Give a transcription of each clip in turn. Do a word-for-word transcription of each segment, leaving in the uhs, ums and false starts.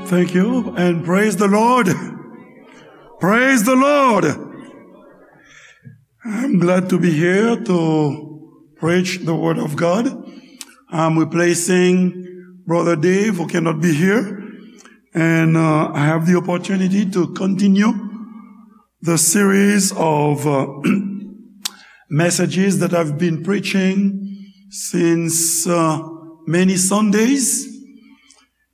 Thank you and praise the Lord. Praise the Lord. I'm glad to be here to preach the word of God. I'm replacing Brother Dave, who cannot be here, and uh, I have the opportunity to continue the series of uh, messages that I've been preaching since uh, many Sundays.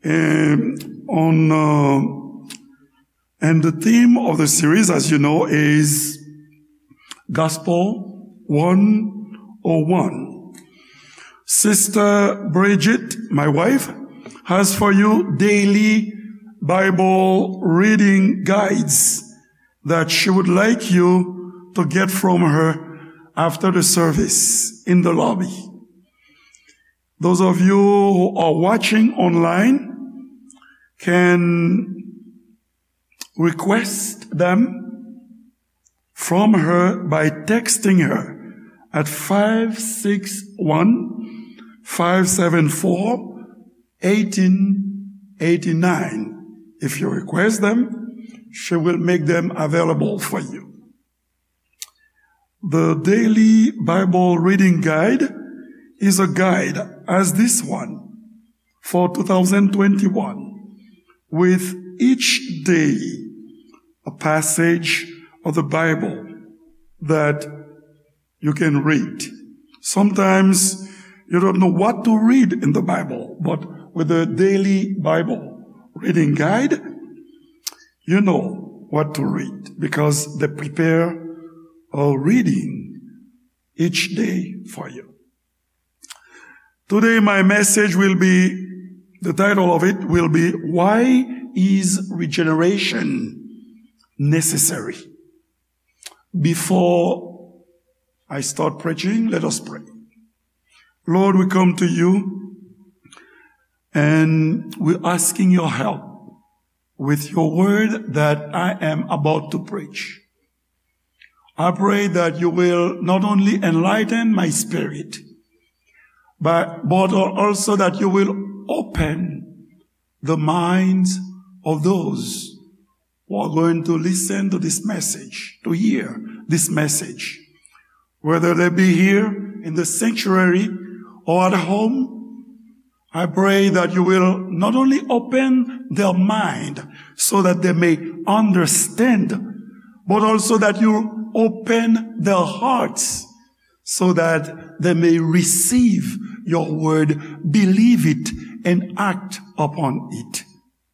And on uh, and the theme of the series, as you know, is Gospel one oh one. Sister Bridget, my wife, has for you daily Bible reading guides that she would like you to get from her after the service in the lobby. Those of you who are watching online can request them from her by texting her at five six one, five seven four, eighteen eighty-nine. If you request them, she will make them available for you. The Daily Bible Reading Guide is a guide as this one for two thousand twenty-one, with each day a passage of the Bible that you can read. Sometimes you don't know what to read in the Bible, but with the Daily Bible Reading Guide, you know what to read because they prepare a reading each day for you. Today, my message will be, the title of it will be, Why is Regeneration Necessary? Before I start preaching, let us pray. Lord, we come to you and we're asking your help with your word that I am about to preach. I pray that you will not only enlighten my spirit, but, but also that you will open the minds of those who are going to listen to this message, to hear this message, whether they be here in the sanctuary or at home. I pray that you will not only open their mind so that they may understand, but also that you open their hearts so that they may receive your word, believe it, and act upon it,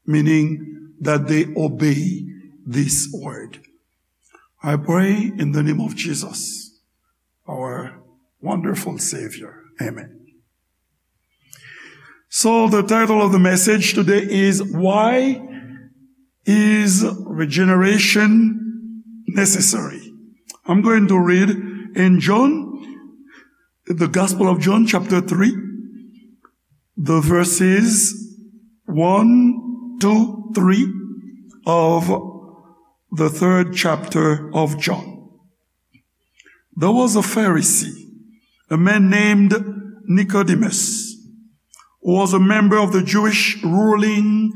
meaning that they obey this word. I pray in the name of Jesus, our wonderful Savior. Amen. So the title of the message today is, Why is Regeneration Necessary? I'm going to read in John, the Gospel of John, chapter three, the verses one, two, three of the third chapter of John. There was a Pharisee, a man named Nicodemus, who was a member of the Jewish ruling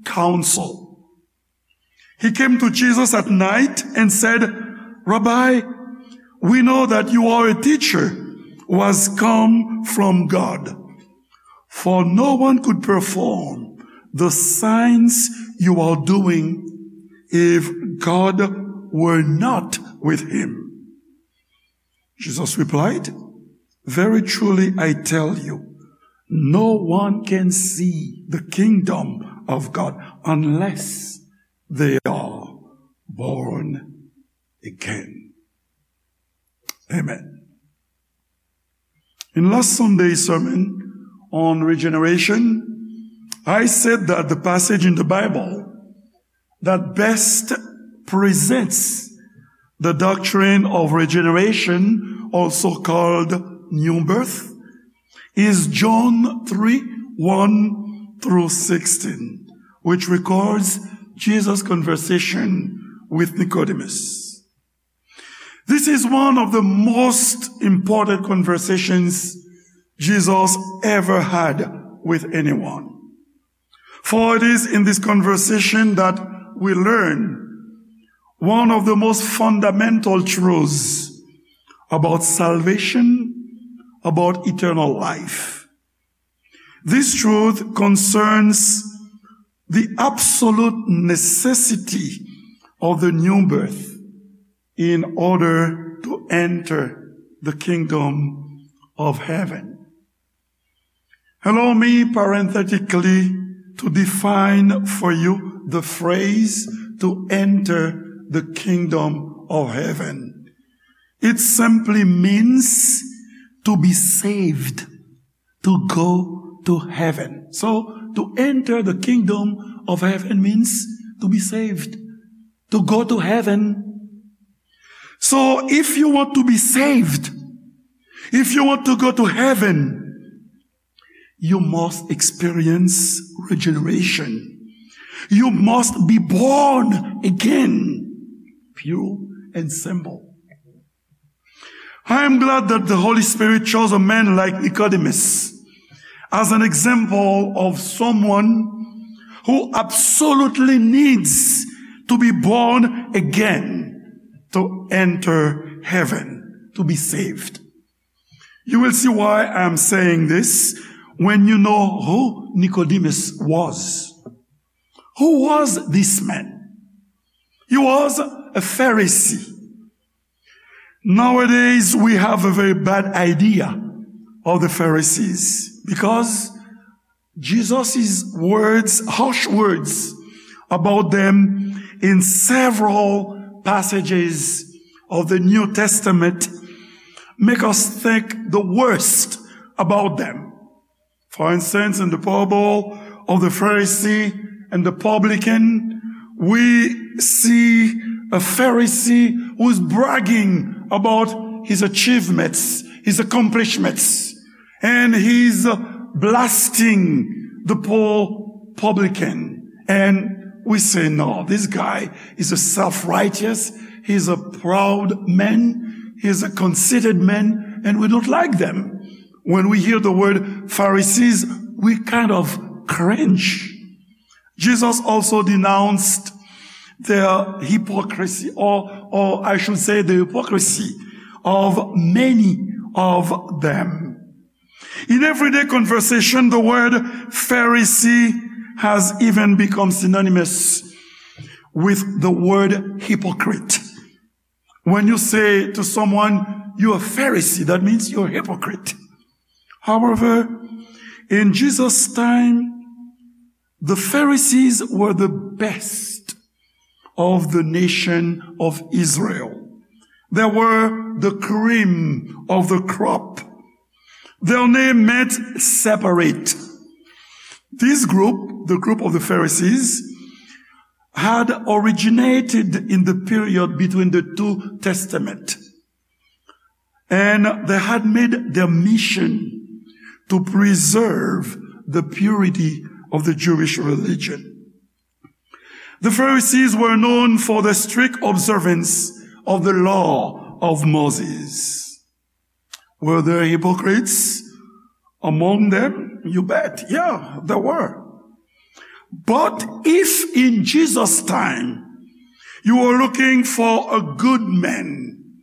council. He came to Jesus at night and said, "Rabbi, we know that you are a teacher who has come from God. For no one could perform the signs you are doing if God were not with him." Jesus replied, "Very truly I tell you, no one can see the kingdom of God unless they are born again." Amen. In last Sunday's sermon on regeneration, I said that the passage in the Bible that best presents the doctrine of regeneration, also called new birth, is John three, one through sixteen, which records Jesus' conversation with Nicodemus. This is one of the most important conversations Jesus ever had with anyone. For it is in this conversation that we learn one of the most fundamental truths about salvation, about eternal life. This truth concerns the absolute necessity of the new birth in order to enter the kingdom of heaven. Allow me parenthetically to define for you the phrase to enter the kingdom of heaven. It simply means to be saved, to go to heaven. So, to enter the kingdom of heaven means to be saved, to go to heaven. So, if you want to be saved, if you want to go to heaven, you must experience regeneration. You must be born again. Pure and simple. I am glad that the Holy Spirit chose a man like Nicodemus as an example of someone who absolutely needs to be born again to enter heaven, to be saved. You will see why I am saying this when you know who Nicodemus was. Who was this man? He was a Pharisee. Nowadays, we have a very bad idea of the Pharisees because Jesus' words, harsh words about them in several passages of the New Testament make us think the worst about them. For instance, in the parable of the Pharisee and the publican, we see a Pharisee who is bragging about his achievements, his accomplishments, and he's uh, blasting the poor publican. And we say, "No, this guy is a self-righteous, he's a proud man, he's a conceited man, and we don't like them." When we hear the word Pharisees, we kind of cringe. Jesus also denounced their hypocrisy, or, or I should say, the hypocrisy of many of them. In everyday conversation, the word Pharisee has even become synonymous with the word hypocrite. When you say to someone, "You're a Pharisee," that means you're a hypocrite. However, in Jesus' time, the Pharisees were the best of the nation of Israel. They were the cream of the crop. Their name meant separate. This group, the group of the Pharisees, had originated in the period between the two testaments, and they had made their mission to preserve the purity of the Jewish religion. The Pharisees were known for the strict observance of the law of Moses. Were there hypocrites among them? You bet. Yeah, there were. But if in Jesus' time you were looking for a good man,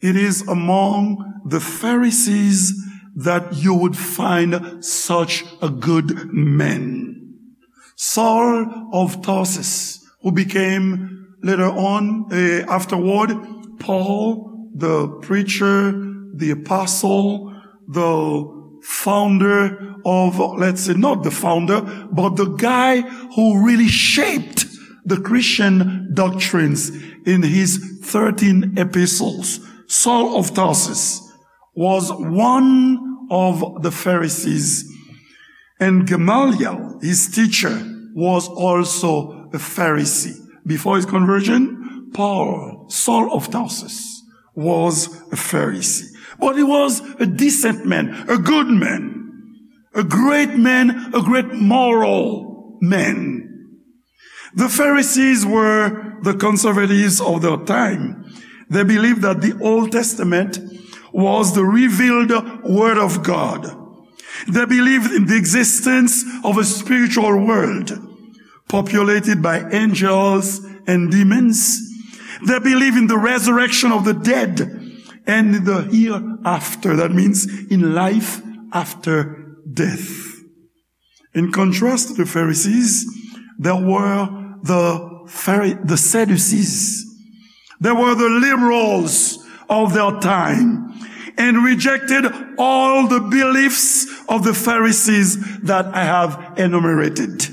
it is among the Pharisees that you would find such a good man. Saul of Tarsus, who became later on, uh, afterward, Paul, the preacher, the apostle, the founder of, let's say, not the founder, but the guy who really shaped the Christian doctrines in his thirteen epistles. Saul of Tarsus was one of the Pharisees. And Gamaliel, his teacher, was also a Pharisee. Before his conversion, Paul, Saul of Tarsus, was a Pharisee. But he was a decent man, a good man, a great man, a great moral man. The Pharisees were the conservatives of their time. They believed that the Old Testament was the revealed word of God. They believed in the existence of a spiritual world populated by angels and demons. They believe in the resurrection of the dead and in the hereafter. That means in life after death. In contrast to the Pharisees, there were the Phari-, the Sadducees. They were the liberals of their time and rejected all the beliefs of the Pharisees that I have enumerated.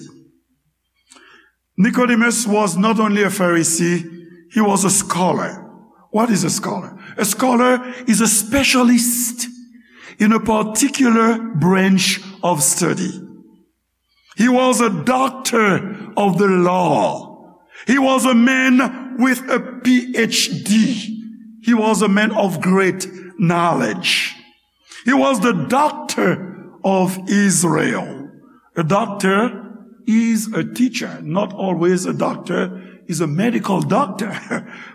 Nicodemus was not only a Pharisee, he was a scholar. What is a scholar? A scholar is a specialist in a particular branch of study. He was a doctor of the law. He was a man with a P H D. He was a man of great knowledge. He was the doctor of Israel. A doctor is a teacher, not always a doctor is a medical doctor.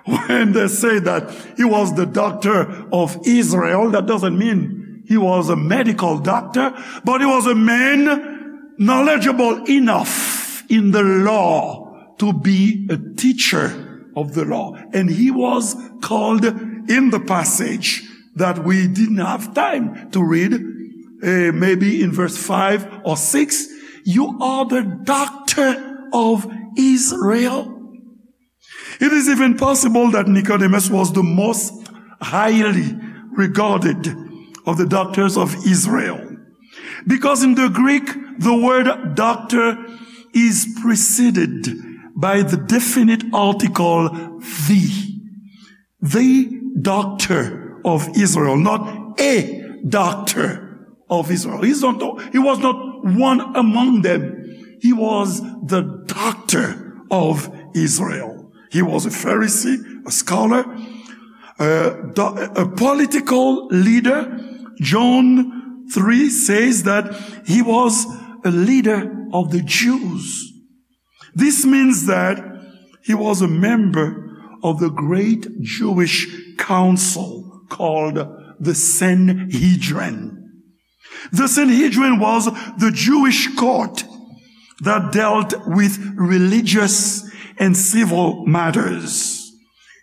When they say that he was the doctor of Israel, that doesn't mean he was a medical doctor, but he was a man knowledgeable enough in the law to be a teacher of the law. And he was called in the passage that we didn't have time to read, eh, maybe in verse five or six, "You are the doctor of Israel." It is even possible that Nicodemus was the most highly regarded of the doctors of Israel. Because in the Greek, the word doctor is preceded by the definite article the. The doctor of Israel, not a doctor of Israel. He's not, he was not one among them. He was the doctor of Israel. He was a Pharisee, a scholar, a, do-, a political leader. John three says that he was a leader of the Jews. This means that he was a member of the great Jewish council called the Sanhedrin. The Sanhedrin was the Jewish court that dealt with religious and civil matters.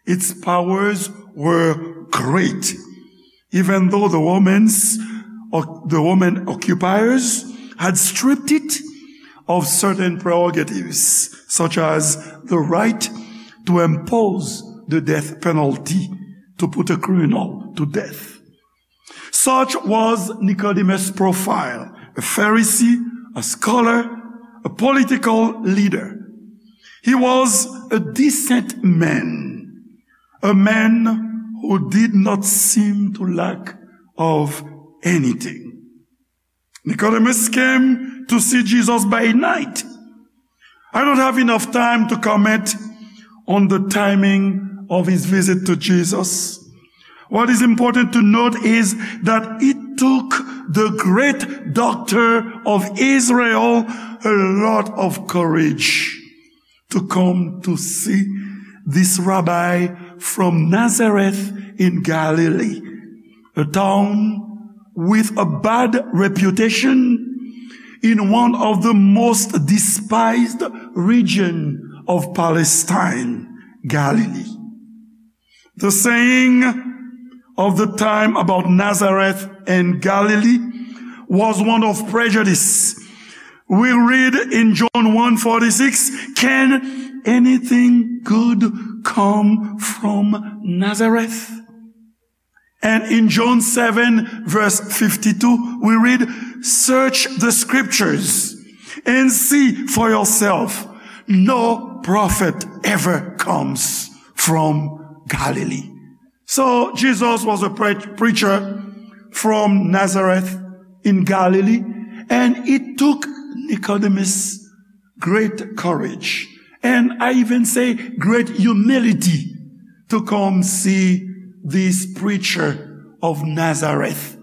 Its powers were great, even though the Romans, or the Roman occupiers, had stripped it of certain prerogatives, such as the right to impose the death penalty, to put a criminal to death. Such was Nicodemus' profile, a Pharisee, a scholar, a political leader. He was a decent man, a man who did not seem to lack of anything. Nicodemus came to see Jesus by night. I don't have enough time to comment on the timing of his visit to Jesus. What is important to note is that it took the great doctor of Israel a lot of courage to come to see this rabbi from Nazareth in Galilee, a town with a bad reputation in one of the most despised region of Palestine, Galilee. The saying of the time about Nazareth and Galilee was one of prejudice. We read in John one forty-six, "Can anything good come from Nazareth?" And in John seven, verse fifty-two, we read, "Search the scriptures and see for yourself. No prophet ever comes from Galilee." So Jesus was a pre-, preacher from Nazareth in Galilee, and it took Nicodemus great courage, and I even say great humility, to come see this preacher of Nazareth,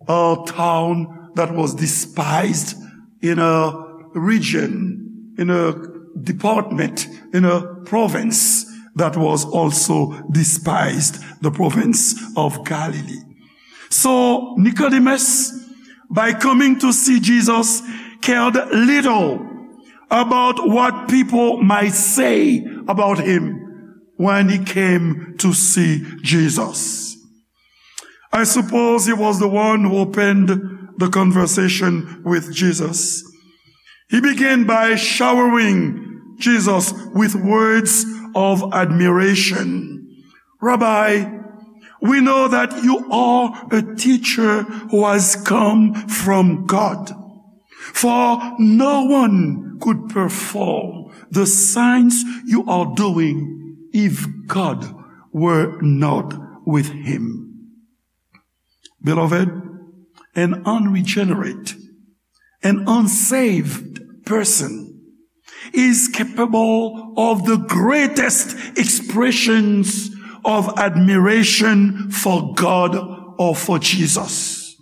a town that was despised in a region, in a department, in a province that was also despised, the province of Galilee. So Nicodemus by coming to see Jesus, cared little about what people might say about him when he came to see Jesus. I suppose he was the one who opened the conversation with Jesus. He began by showering Jesus with words of admiration. "Rabbi, we know that you are a teacher who has come from God. For no one could perform the signs you are doing if God were not with him." Beloved, an unregenerate, an unsaved person is capable of the greatest expressions of admiration for God or for Jesus.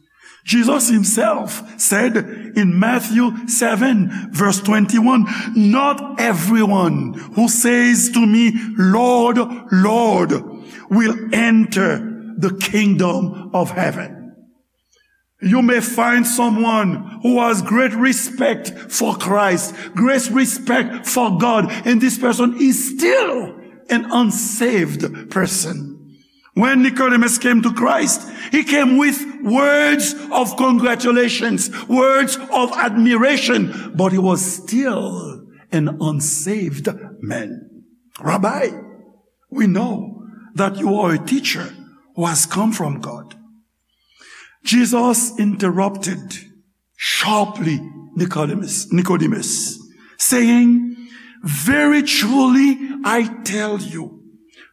Jesus himself said in Matthew seven, verse twenty-one, "Not everyone who says to me, 'Lord, Lord,' will enter the kingdom of heaven." You may find someone who has great respect for Christ, great respect for God, and this person is still an unsaved person. When Nicodemus came to Christ, he came with words of congratulations, words of admiration, but he was still an unsaved man. "Rabbi, we know that you are a teacher who has come from God." Jesus interrupted sharply Nicodemus, Nicodemus, saying, "Very truly I tell you,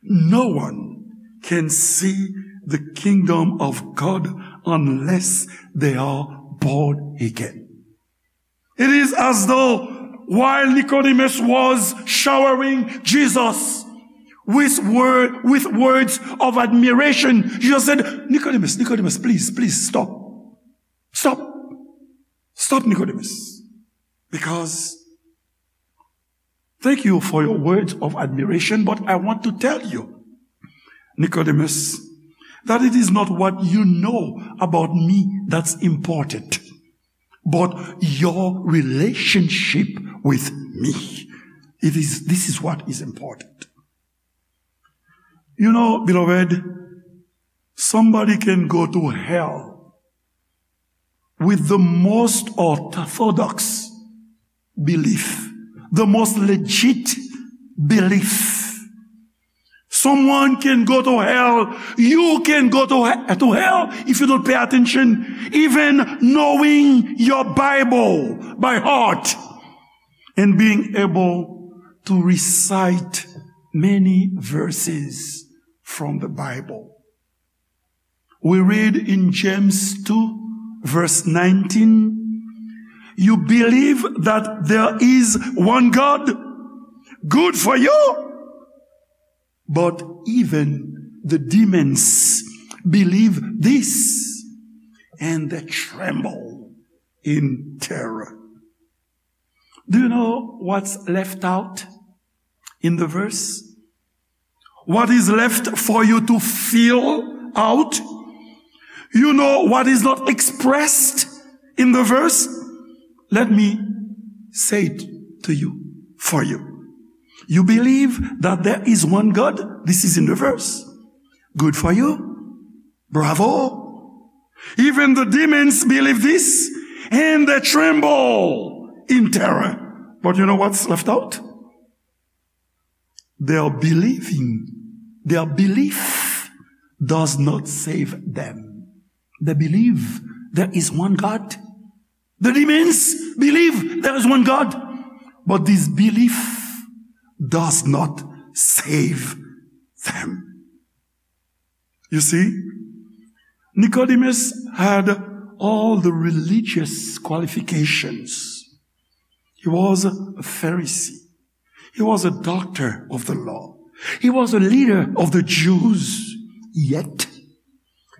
no one can see the kingdom of God unless they are born again." It is as though while Nicodemus was showering Jesus with, word, with words of admiration, Jesus said, "Nicodemus, Nicodemus, please, please stop. Stop. Stop, Nicodemus. Because thank you for your words of admiration, but I want to tell you, Nicodemus, that it is not what you know about me that's important, but your relationship with me. It is, this is what is important." You know, beloved, somebody can go to hell with the most orthodox belief, the most legit belief. Someone can go to hell. You can go to, he- to hell if you don't pay attention, even knowing your Bible by heart and being able to recite many verses from the Bible. We read in James two, verse nineteen, "You believe that there is one God? Good for you. But even the demons believe this, and they tremble in terror." Do you know what's left out in the verse? What is left for you to fill out? You know what is not expressed in the verse? Let me say it to you, for you. You believe that there is one God? This is in the verse. Good for you. Bravo. Even the demons believe this, and they tremble in terror. But you know what's left out? Their believing, their belief does not save them. They believe there is one God. The demons believe there is one God. But this belief does not save them. You see, Nicodemus had all the religious qualifications. He was a Pharisee. He was a doctor of the law. He was a leader of the Jews. Yet,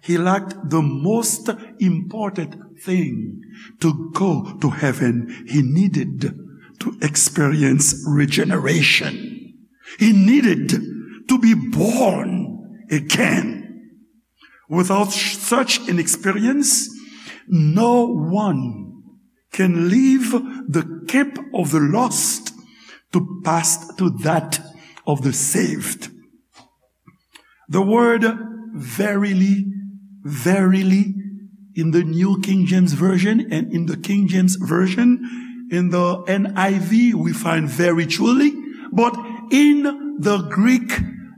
he lacked the most important thing to go to heaven. He needed to experience regeneration. He needed to be born again. Without sh- such an experience, No one can leave the camp of the lost to pass to that of the saved. The word verily, verily, in the New King James Version and in the King James Version, in the N I V, we find very truly, but in the Greek,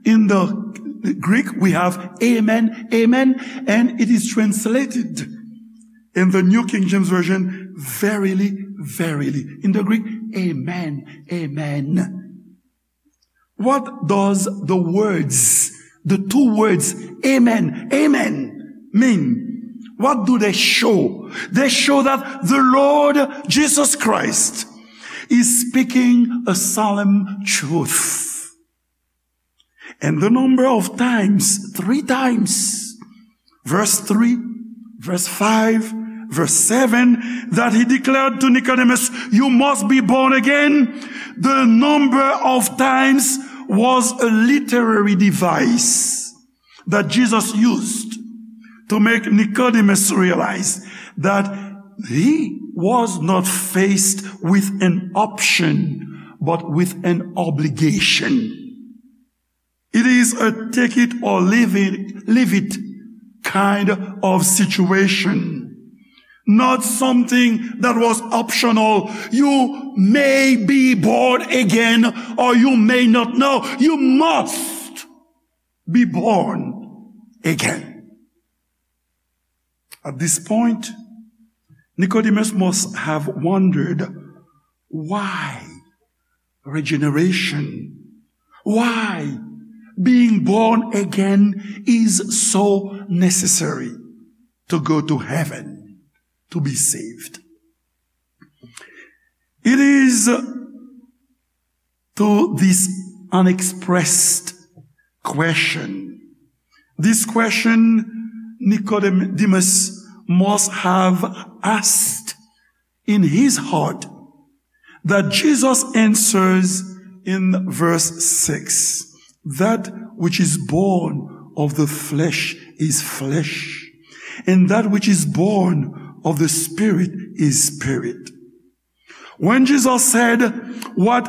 in the Greek, we have amen, amen, and it is translated in the New King James Version, verily, verily. In the Greek, amen, amen. What does the words, the two words, amen, amen, mean? What do they show? They show that the Lord Jesus Christ is speaking a solemn truth. And the number of times, three times, verse three, verse five, verse seven, that he declared to Nicodemus, "You must be born again." The number of times was a literary device that Jesus used to make Nicodemus realize that he was not faced with an option, but with an obligation. It is a take it or leave it, leave it kind of situation. Not something that was optional. You may be born again or you may not. No, you must be born again. At this point, Nicodemus must have wondered, why regeneration? Why being born again is so necessary to go to heaven, to be saved? It is to this unexpressed question. This question Nicodemus must have asked in his heart that Jesus answers in verse six. That which is born of the flesh is flesh, and that which is born of the spirit is spirit. When Jesus said, "What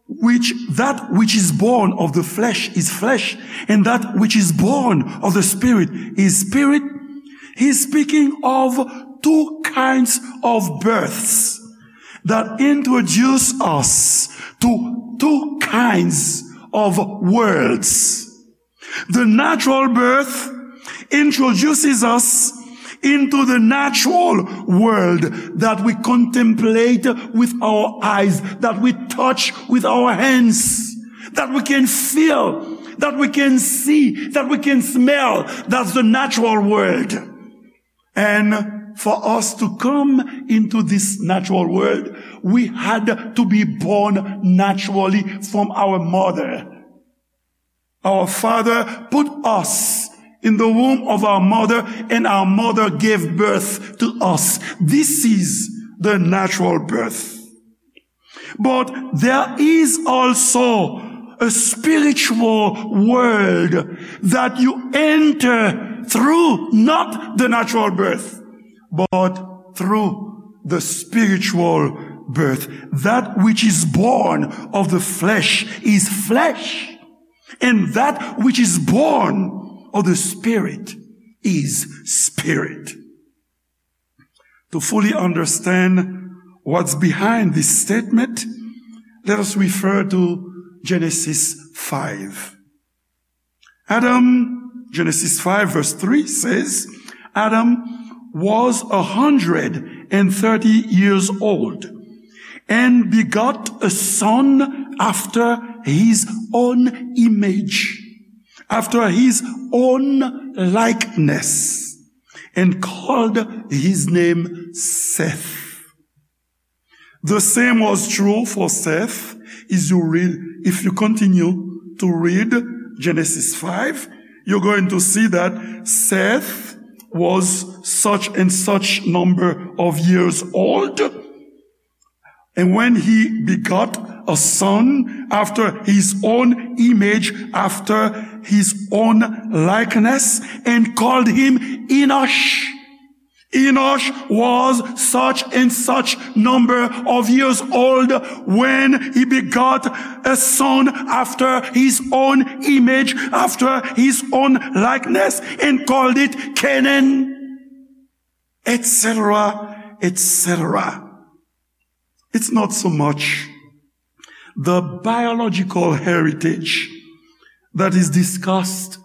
which that which is born of the flesh is flesh, and that which is born of the spirit is spirit," he's speaking of two kinds of births that introduce us to two kinds of worlds. The natural birth introduces us into the natural world that we contemplate with our eyes, that we touch with our hands, that we can feel, that we can see, that we can smell. That's the natural world. And for us to come into this natural world, we had to be born naturally from our mother. Our father put us in the womb of our mother, and our mother gave birth to us. This is the natural birth. But there is also a spiritual world that you enter through, not the natural birth, but through the spiritual birth. That which is born of the flesh is flesh, and that which is born of the spirit is spirit. To fully understand what's behind this statement, let us refer to Genesis five. Adam, Genesis five verse three says, "Adam was a hundred and thirty years old and begot a son after his own image, after his own likeness, and called his name Seth." The same was true for Seth. Is you read, if you continue to read Genesis five, you're going to see that Seth was such and such number of years old. And when he begot a son after his own image, after his own likeness, and called him Enosh. Enosh was such and such number of years old when he begot a son after his own image, after his own likeness, and called it Canaan, et cetera, et cetera. It's not so much the biological heritage that is discussed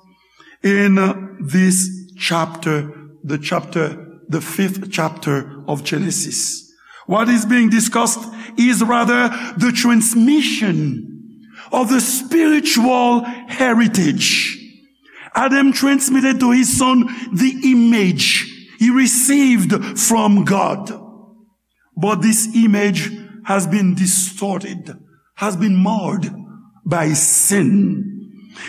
in this chapter, the chapter, the fifth chapter of Genesis. What is being discussed is rather the transmission of the spiritual heritage. Adam transmitted to his son the image he received from God. But this image has been distorted, has been marred by sin.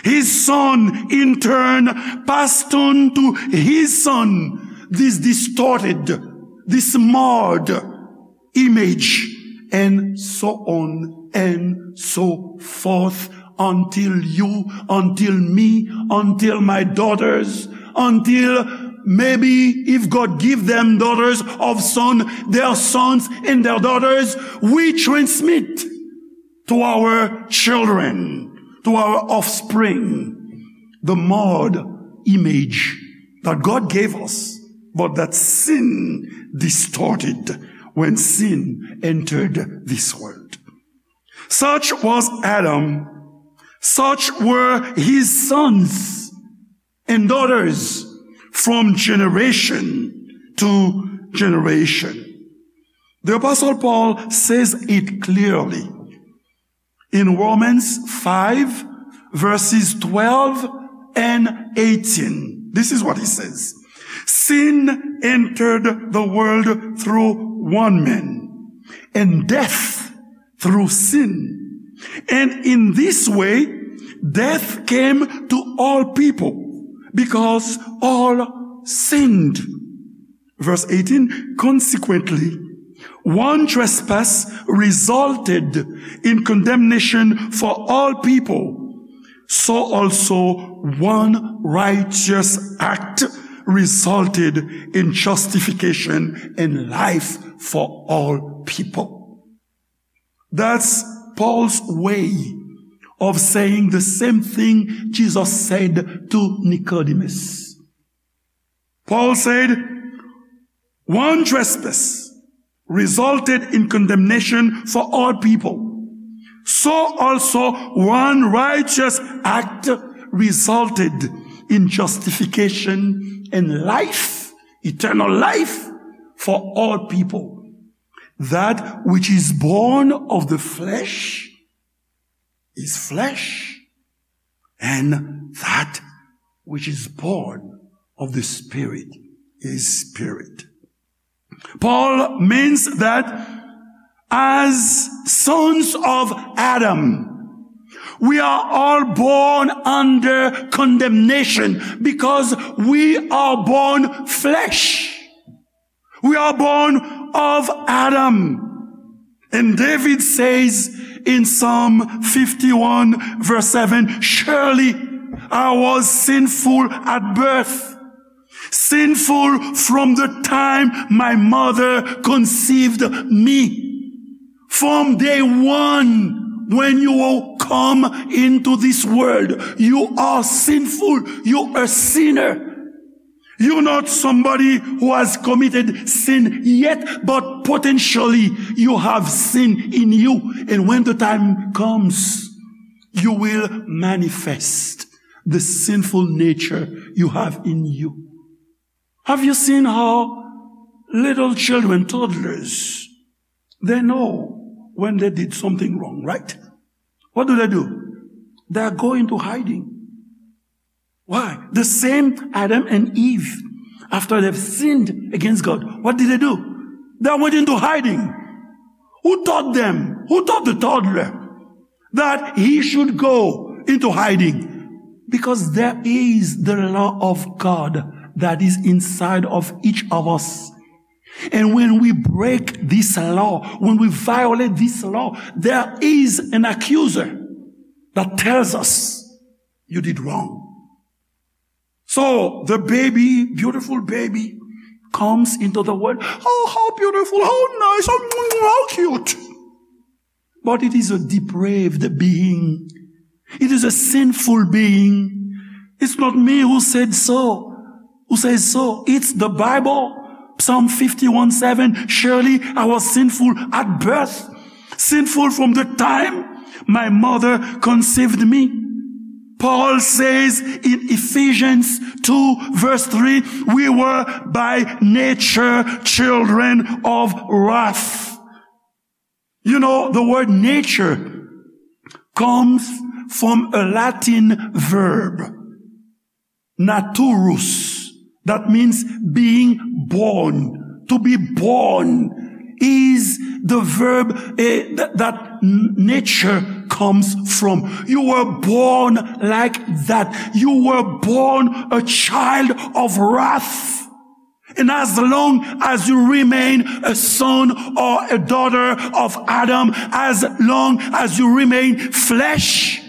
His son, in turn, passed on to his son this distorted, this marred image, and so on and so forth, until you, until me, until my daughters, until maybe if God give them daughters of son, their sons and their daughters, we transmit to our children, to our offspring, the marred image that God gave us, but that sin distorted when sin entered this world. Such was Adam. Such were his sons and daughters from generation to generation. The Apostle Paul says it clearly in Romans five, verses twelve and eighteen. This is what he says. Sin entered the world through one man, and death through sin. And in this way, death came to all people because all sinned. Verse eighteen, consequently, one trespass resulted in condemnation for all people. So also one righteous act resulted in justification and life for all people. That's Paul's way of saying the same thing Jesus said to Nicodemus. Paul said, one trespass resulted in condemnation for all people. So also one righteous act resulted in justification and life, eternal life for all people. That which is born of the flesh is flesh, and that which is born of the Spirit is spirit. Paul means that as sons of Adam, we are all born under condemnation because we are born flesh. We are born of Adam. And David says in Psalm fifty-one, verse seven, surely I was sinful at birth, sinful from the time my mother conceived me. From day one, when you come into this world, you are sinful, you are a sinner. You're not somebody who has committed sin yet, but potentially you have sin in you. And when the time comes, you will manifest the sinful nature you have in you. Have you seen how little children, toddlers, they know when they did something wrong, right? What do they do? They go into hiding. Why? The same Adam and Eve, after they've sinned against God, what did they do? They went into hiding. Who taught them? Who taught the toddler that he should go into hiding? Because there is the law of God that is inside of each of us. And when we break this law, when we violate this law, there is an accuser that tells us, you did wrong. So the baby, beautiful baby, comes into the world. Oh, how beautiful, how nice, how, how cute. But it is a depraved being. It is a sinful being. It's not me who said so, who says so. It's the Bible. Psalm fifty-one seven, "Surely I was sinful at birth, sinful from the time my mother conceived me." Paul says in Ephesians two verse three, "We were by nature children of wrath." You know, the word nature comes from a Latin verb, naturus, that means being born. To be born is the verb, eh, th- that n- nature comes from. You were born like that. You were born a child of wrath. And as long as you remain a son or a daughter of Adam, as long as you remain flesh,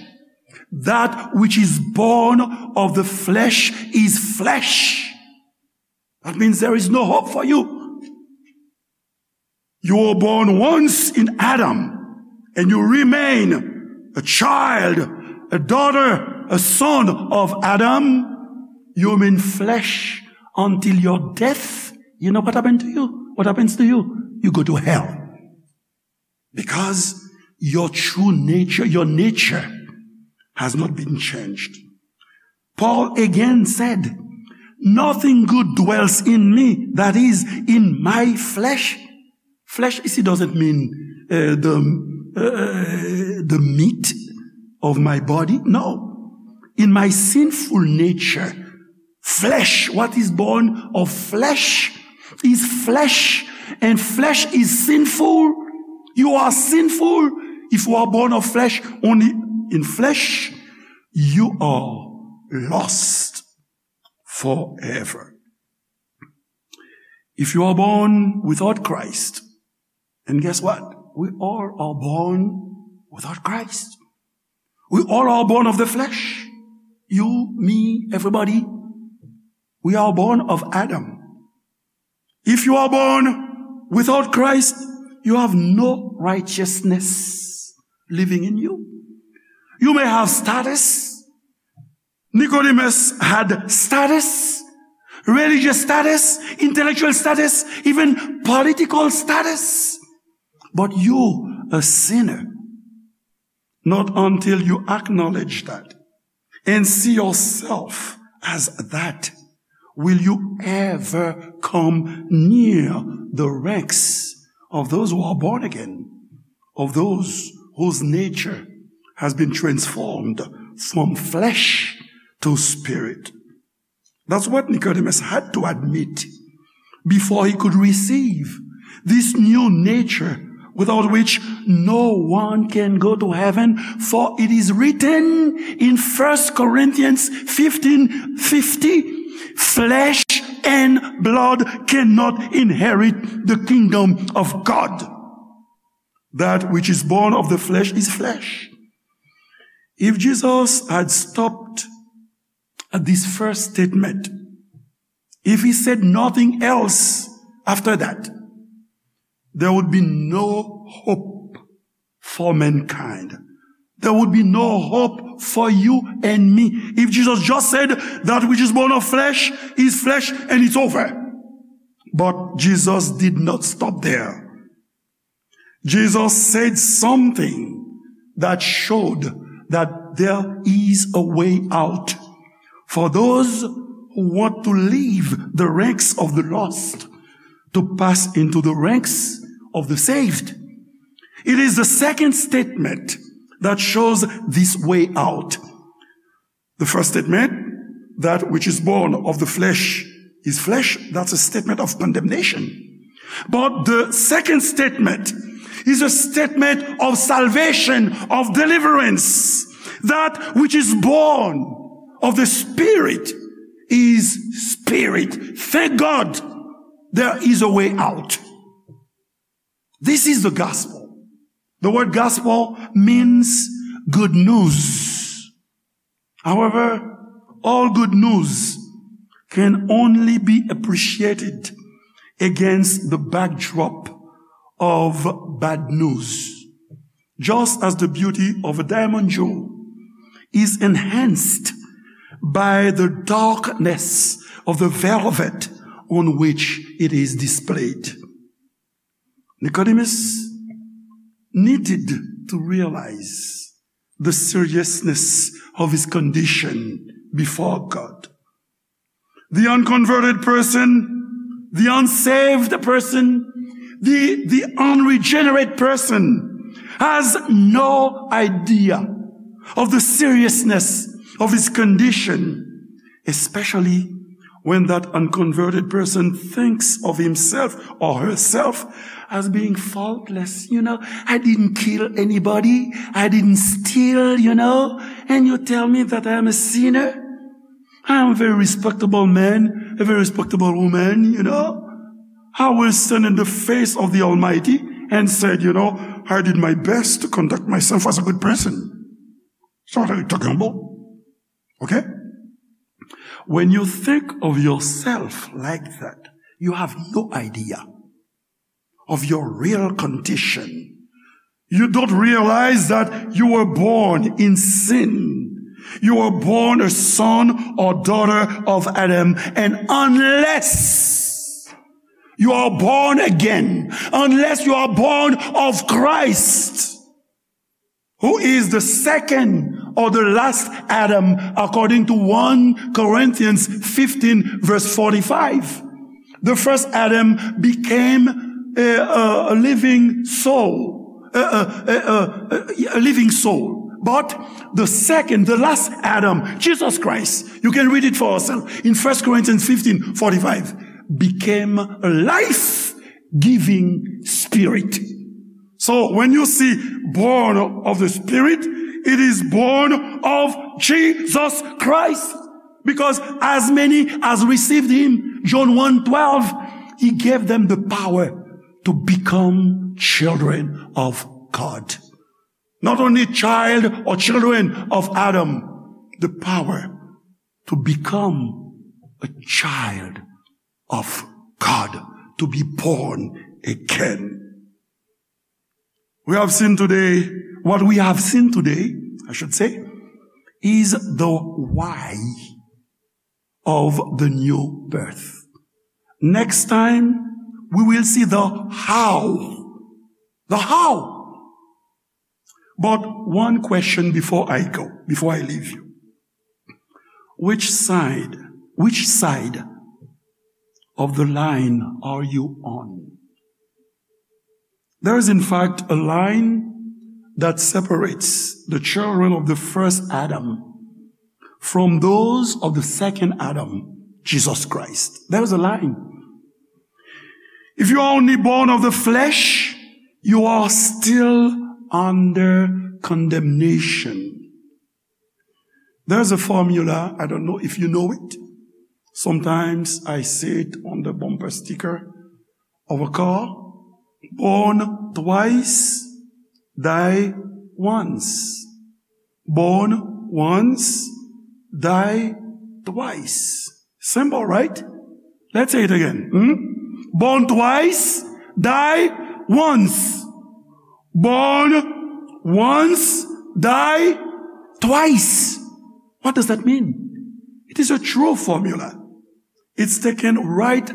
that which is born of the flesh is flesh. That means there is no hope for you. You were born once in Adam, and you remain a child, a daughter, a son of Adam. You remain flesh until your death. You know what happened to you? What happens to you? You go to hell. Because your true nature, your nature has not been changed. Paul again said, "Nothing good dwells in me," that is, in my flesh. Flesh ici doesn't mean uh, the, uh, the meat of my body. No. In my sinful nature, flesh, what is born of flesh is flesh, and flesh is sinful. You are sinful if you are born of flesh, only in flesh. You are lost forever. If you are born without Christ, and guess what? We all are born without Christ. We all are born of the flesh. You, me, everybody. We are born of Adam. If you are born without Christ, you have no righteousness living in you. You may have status. Nicodemus had status, religious status, intellectual status, even political status. But you, a sinner, not until you acknowledge that and see yourself as that, will you ever come near the ranks of those who are born again, of those whose nature has been transformed from flesh to spirit. That's what Nicodemus had to admit before he could receive this new nature without which no one can go to heaven, for it is written in First Corinthians fifteen fifty, "Flesh and blood cannot inherit the kingdom of God. That which is born of the flesh is flesh." If Jesus had stopped at this first statement, if he said nothing else after that, there would be no hope for mankind. There would be no hope for you and me. If Jesus just said, "That which is born of flesh is flesh," and it's over. But Jesus did not stop there. Jesus said something that showed that there is a way out for those who want to leave the ranks of the lost to pass into the ranks of the saved. It is the second statement that shows this way out. The first statement, "That which is born of the flesh is flesh," that's a statement of condemnation. But the second statement is a statement of salvation, of deliverance. That which is born of the Spirit is spirit. Thank God there is a way out. This is the gospel. The word gospel means good news. However, all good news can only be appreciated against the backdrop of bad news, just as the beauty of a diamond jewel is enhanced by the darkness of the velvet on which it is displayed. Nicodemus needed to realize the seriousness of his condition before God. The unconverted person, the unsaved person, the, the unregenerate person has no idea of the seriousness of his condition, especially when that unconverted person thinks of himself or herself as being faultless. You know, I didn't kill anybody, I didn't steal, you know, and you tell me that I am a sinner. I am a very respectable man, a very respectable woman, you know. I will stand in the face of the Almighty and said, you know, I did my best to conduct myself as a good person. So what are you talking about? Okay? When you think of yourself like that, you have no idea of your real condition. You don't realize that you were born in sin. You were born a son or daughter of Adam. And unless you are born again, unless you are born of Christ, who is the second or the last Adam, according to one Corinthians fifteen, verse forty-five. The first Adam became a, a, a living soul, a, a, a, a, a living soul. But the second, the last Adam, Jesus Christ, you can read it for yourself in First Corinthians fifteen forty-five, became a life-giving spirit. So when you see born of the Spirit, it is born of Jesus Christ. Because as many as received him, John one twelve, he gave them the power to become children of God. Not only child or children of Adam, the power to become a child of God, to be born again. We have seen today, what we have seen today, I should say, is the why of the new birth. Next time, we will see the how. The how. But one question before I go, before I leave you. Which side, which side of the line are you on? There is, in fact, a line that separates the children of the first Adam from those of the second Adam, Jesus Christ. There is a line. If you are only born of the flesh, you are still under condemnation. There's a formula, I don't know if you know it. Sometimes I see it on the bumper sticker of a car. Born twice, die once. Born once, die twice. Simple, right? Let's say it again. Hmm? Born twice, die once. Born once, die twice. What does that mean? It is a true formula. It's taken right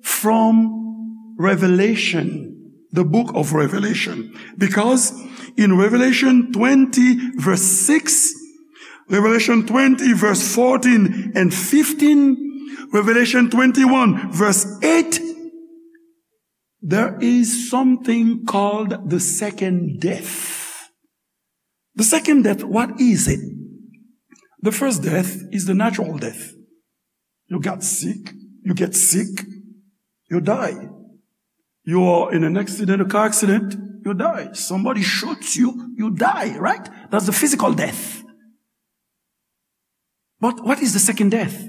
from Revelation, the book of Revelation. Because in Revelation twenty, verse six, Revelation twenty, verse fourteen and fifteen, Revelation twenty-one, verse eight, there is something called the second death. The second death, what is it? The first death is the natural death. You got sick, you get sick, you die. You are in an accident, a car accident, you die. Somebody shoots you, you die, right? That's the physical death. But what is the second death?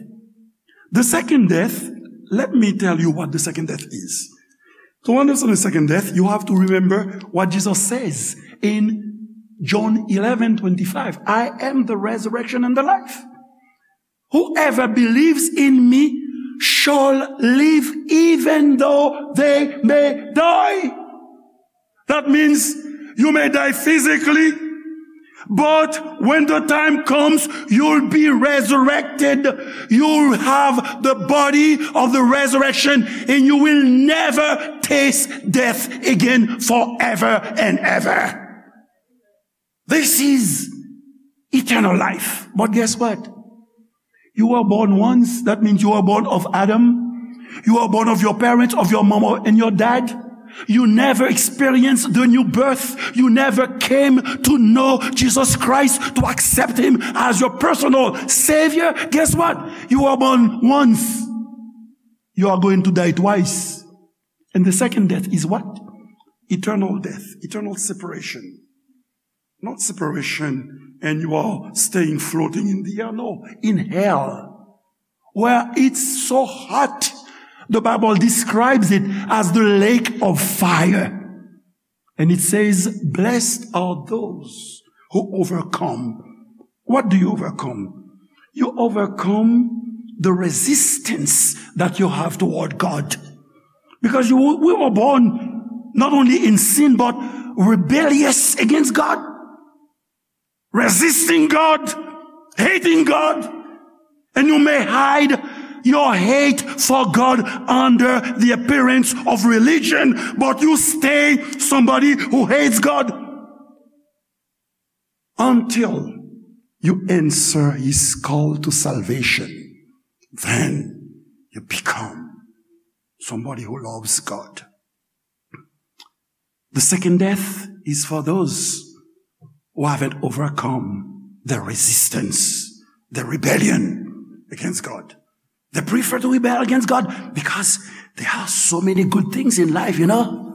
The second death, let me tell you what the second death is. To understand the second death, you have to remember what Jesus says in John eleven twenty-five. I am the resurrection and the life. Whoever believes in me shall live even though they may die. That means you may die physically, but when the time comes, you'll be resurrected. You'll have the body of the resurrection, and you will never taste death again forever and ever. This is eternal life. But guess what? You were born once. That means you were born of Adam. You were born of your parents, of your mama and your dad. You never experienced the new birth. You never came to know Jesus Christ, to accept him as your personal Savior. Guess what? You were born once. You are going to die twice. And the second death is what? Eternal death, eternal separation. Not separation and you are staying floating in the air. No, in hell, where it's so hot. The Bible describes it as the lake of fire. And it says, "Blessed are those who overcome." What do you overcome? You overcome the resistance that you have toward God. Because you, we were born not only in sin, but rebellious against God, resisting God, hating God. And you may hide your hate for God under the appearance of religion, but you stay somebody who hates God until you answer his call to salvation. Then you become somebody who loves God. The second death is for those who haven't overcome the resistance, the rebellion against God. They prefer to rebel against God because there are so many good things in life, you know.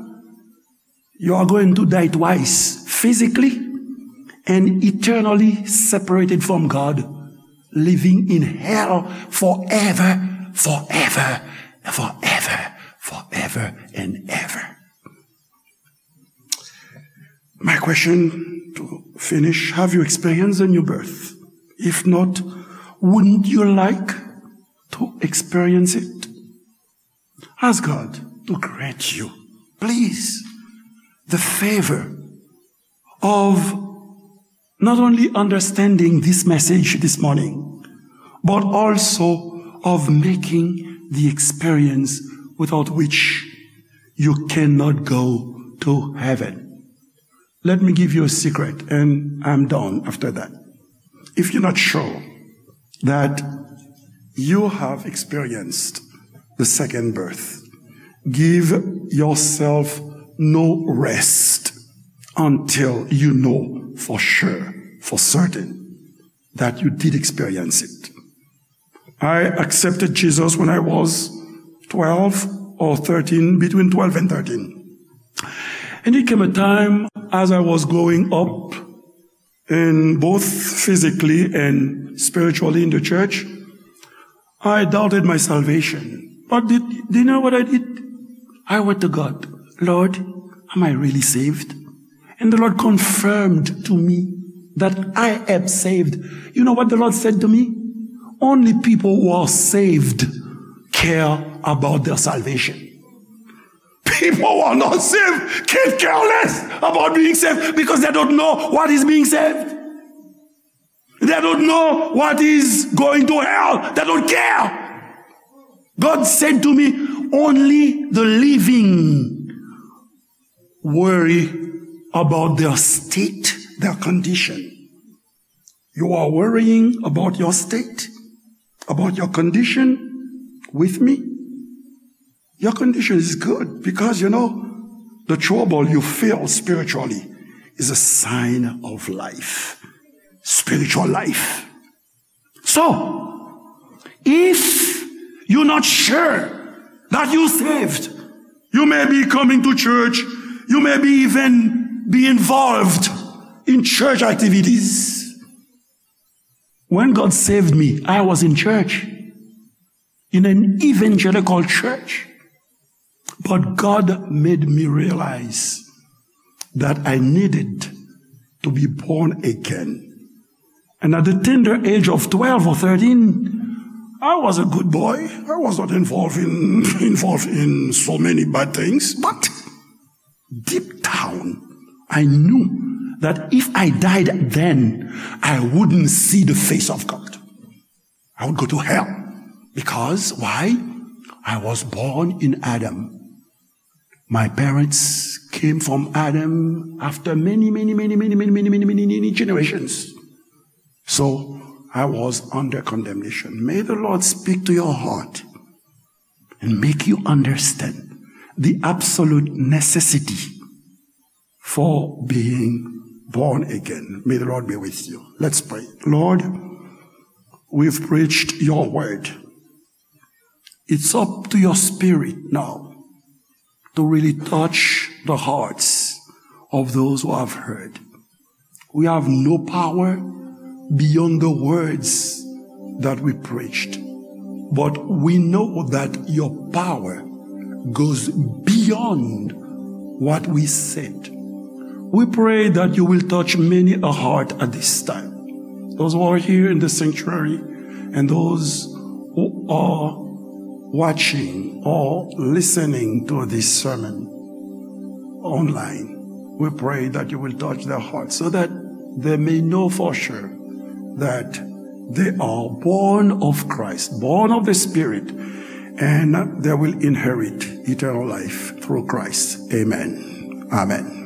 You are going to die twice, physically and eternally separated from God, living in hell forever, forever, forever, forever and ever. My question to finish, have you experienced a new birth? If not, wouldn't you like to experience it? Ask God to grant you, please, the favor of not only understanding this message this morning, but also of making the experience without which you cannot go to heaven. Let me give you a secret, and I'm done after that. If you're not sure that you have experienced the second birth, give yourself no rest until you know for sure, for certain, that you did experience it. I accepted Jesus when I was twelve or thirteen, between twelve and thirteen. And it came a time as I was growing up, and both physically and spiritually in the church, I doubted my salvation. But did, do you know what I did? I went to God, "Lord, am I really saved?" And the Lord confirmed to me that I am saved. You know what the Lord said to me? Only people who are saved care about their salvation. People who are not saved can care less about being saved because they don't know what is being saved. They don't know what is going to hell. They don't care. God said to me, "Only the living worry about their state, their condition." You are worrying about your state, about your condition with me? Your condition is good because, you know, the trouble you feel spiritually is a sign of life, spiritual life. So, if you're not sure that you're saved, you may be coming to church, you may be even be involved in church activities. When God saved me, I was in church, in an evangelical church. But God made me realize that I needed to be born again. And at the tender age of twelve or thirteen, I was a good boy. I was not involved in, involved in so many bad things. But deep down, I knew that if I died then, I wouldn't see the face of God. I would go to hell. Because why? I was born in Adam. My parents came from Adam after many, many, many generations. So I was under condemnation. May the Lord speak to your heart and make you understand the absolute necessity for being born again. May the Lord be with you. Let's pray. Lord, we've preached your word. It's up to your spirit now to really touch the hearts of those who have heard. We have no power beyond the words that we preached, but we know that your power goes beyond what we said. We pray that you will touch many a heart at this time. Those who are here in the sanctuary and those who are watching or listening to this sermon online, we pray that you will touch their hearts so that they may know for sure that they are born of Christ, born of the Spirit, and they will inherit eternal life through Christ. Amen. Amen.